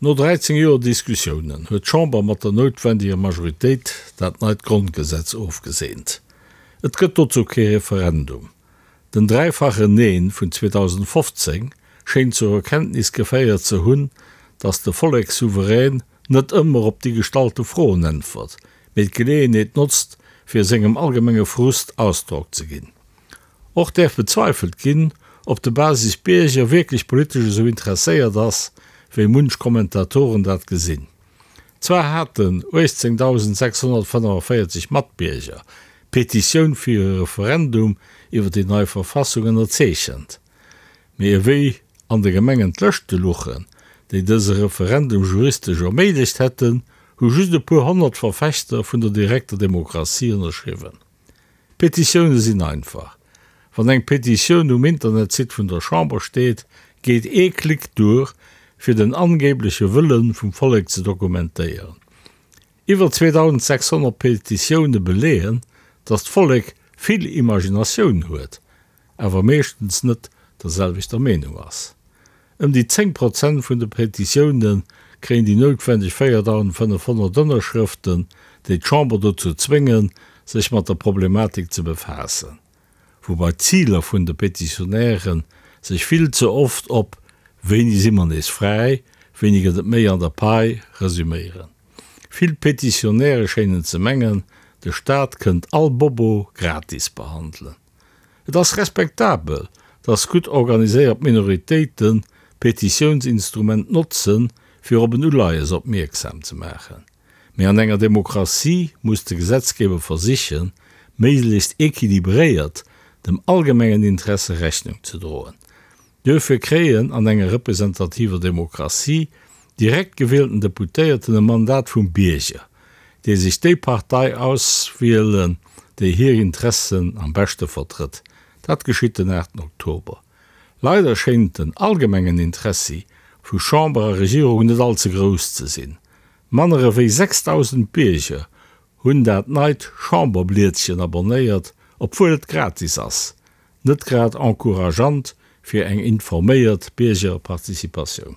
No 13 Joer Diskussiounen huet d'Chamber mat der noutwendiger Majoritéit dat neit Grondgesetz ofgeseent. Et gëtt dozou kee Referendum. Den dräifachen Neen vun 2015 schéint zur Erkenntnis geféiert ze hunn, datt de Vollekssouverän net ëmmer op déi gestallte Froen äntwert, mee d'Geleeënheet notzt, fir sengem allgemenge Frust Ausdrock ze ginn. Och däerf bezweifelt ginn, ob de Basisbierger wierklech politesch esou interesséiert ass, wéi munch Kommentatoren dat gesinn. Zwar haten 18.645 Matbierger d'Petitioun fir e Referendum iwwer déi nei Verfassung ënnerzeechent, mee ewéi an de Gemengen d'Lëschte luchen, déi dëse Referendum juristesch erméiglecht hätten, hu just e puer 100 Verfechter vun der direkter Demokratie ënnerschriwwen. Petitioune sinn einfach. Wann eng Petitioun um Internetsite vun der Chamber steet, geet ee Klick duer, fir den angebleche Wëlle vum Vollek ze dokumentéieren. Iwwer 2.600 Petitioune beleeën, datt d'Vollek vill Imaginatioun huet, awer meeschtens net der selwechter Meenung ass. Ëm déi 10 Prozent vun de Petitioune kréien déi noutwendeg 4.500 Ënnerschrëften, déi d'Chamber dozou zwéngen, sech mat der Problematik ze befaassen. Woubai d'Ziler vun de Petitionäre sech vill ze oft op Wéini si mer nees fräi, wéini gëtt et méi an der Pai resuméieren. Vill Petitionäre schéinen ze mengen, de Staat kënnt all Bobo gratis behandelen. Et ass respektabel, dass gutt organiséiert Minoritéiten d'Petitiounsinstrument notzen, fir op en Uleies opmierksam ze maachen. Mee an enger Demokratie muss de Gesetzgeber versichen, méiglechst equilibréiert dem allgemengen Interesse Rechnung ze droen. Duerfir kréien an enger representativer Demokratie direkt gewielten Deputéierten e Mandat vum Bierger, déi sech déi Partei auswielen, déi hir Interessen am beschte vertrëtt. Dat geschitt den 8 Oktober. Leider schéint den allgemengen Interessi vu Chamber a Regierung net all ze grouss ze sinn. Manner ewéi 6.000 Bierger hunn dat neit Chamberblietchen abonnéiert, obwuel et gratis ass. Net grad encourageant fir eng informéiert Biergerparticipatioun.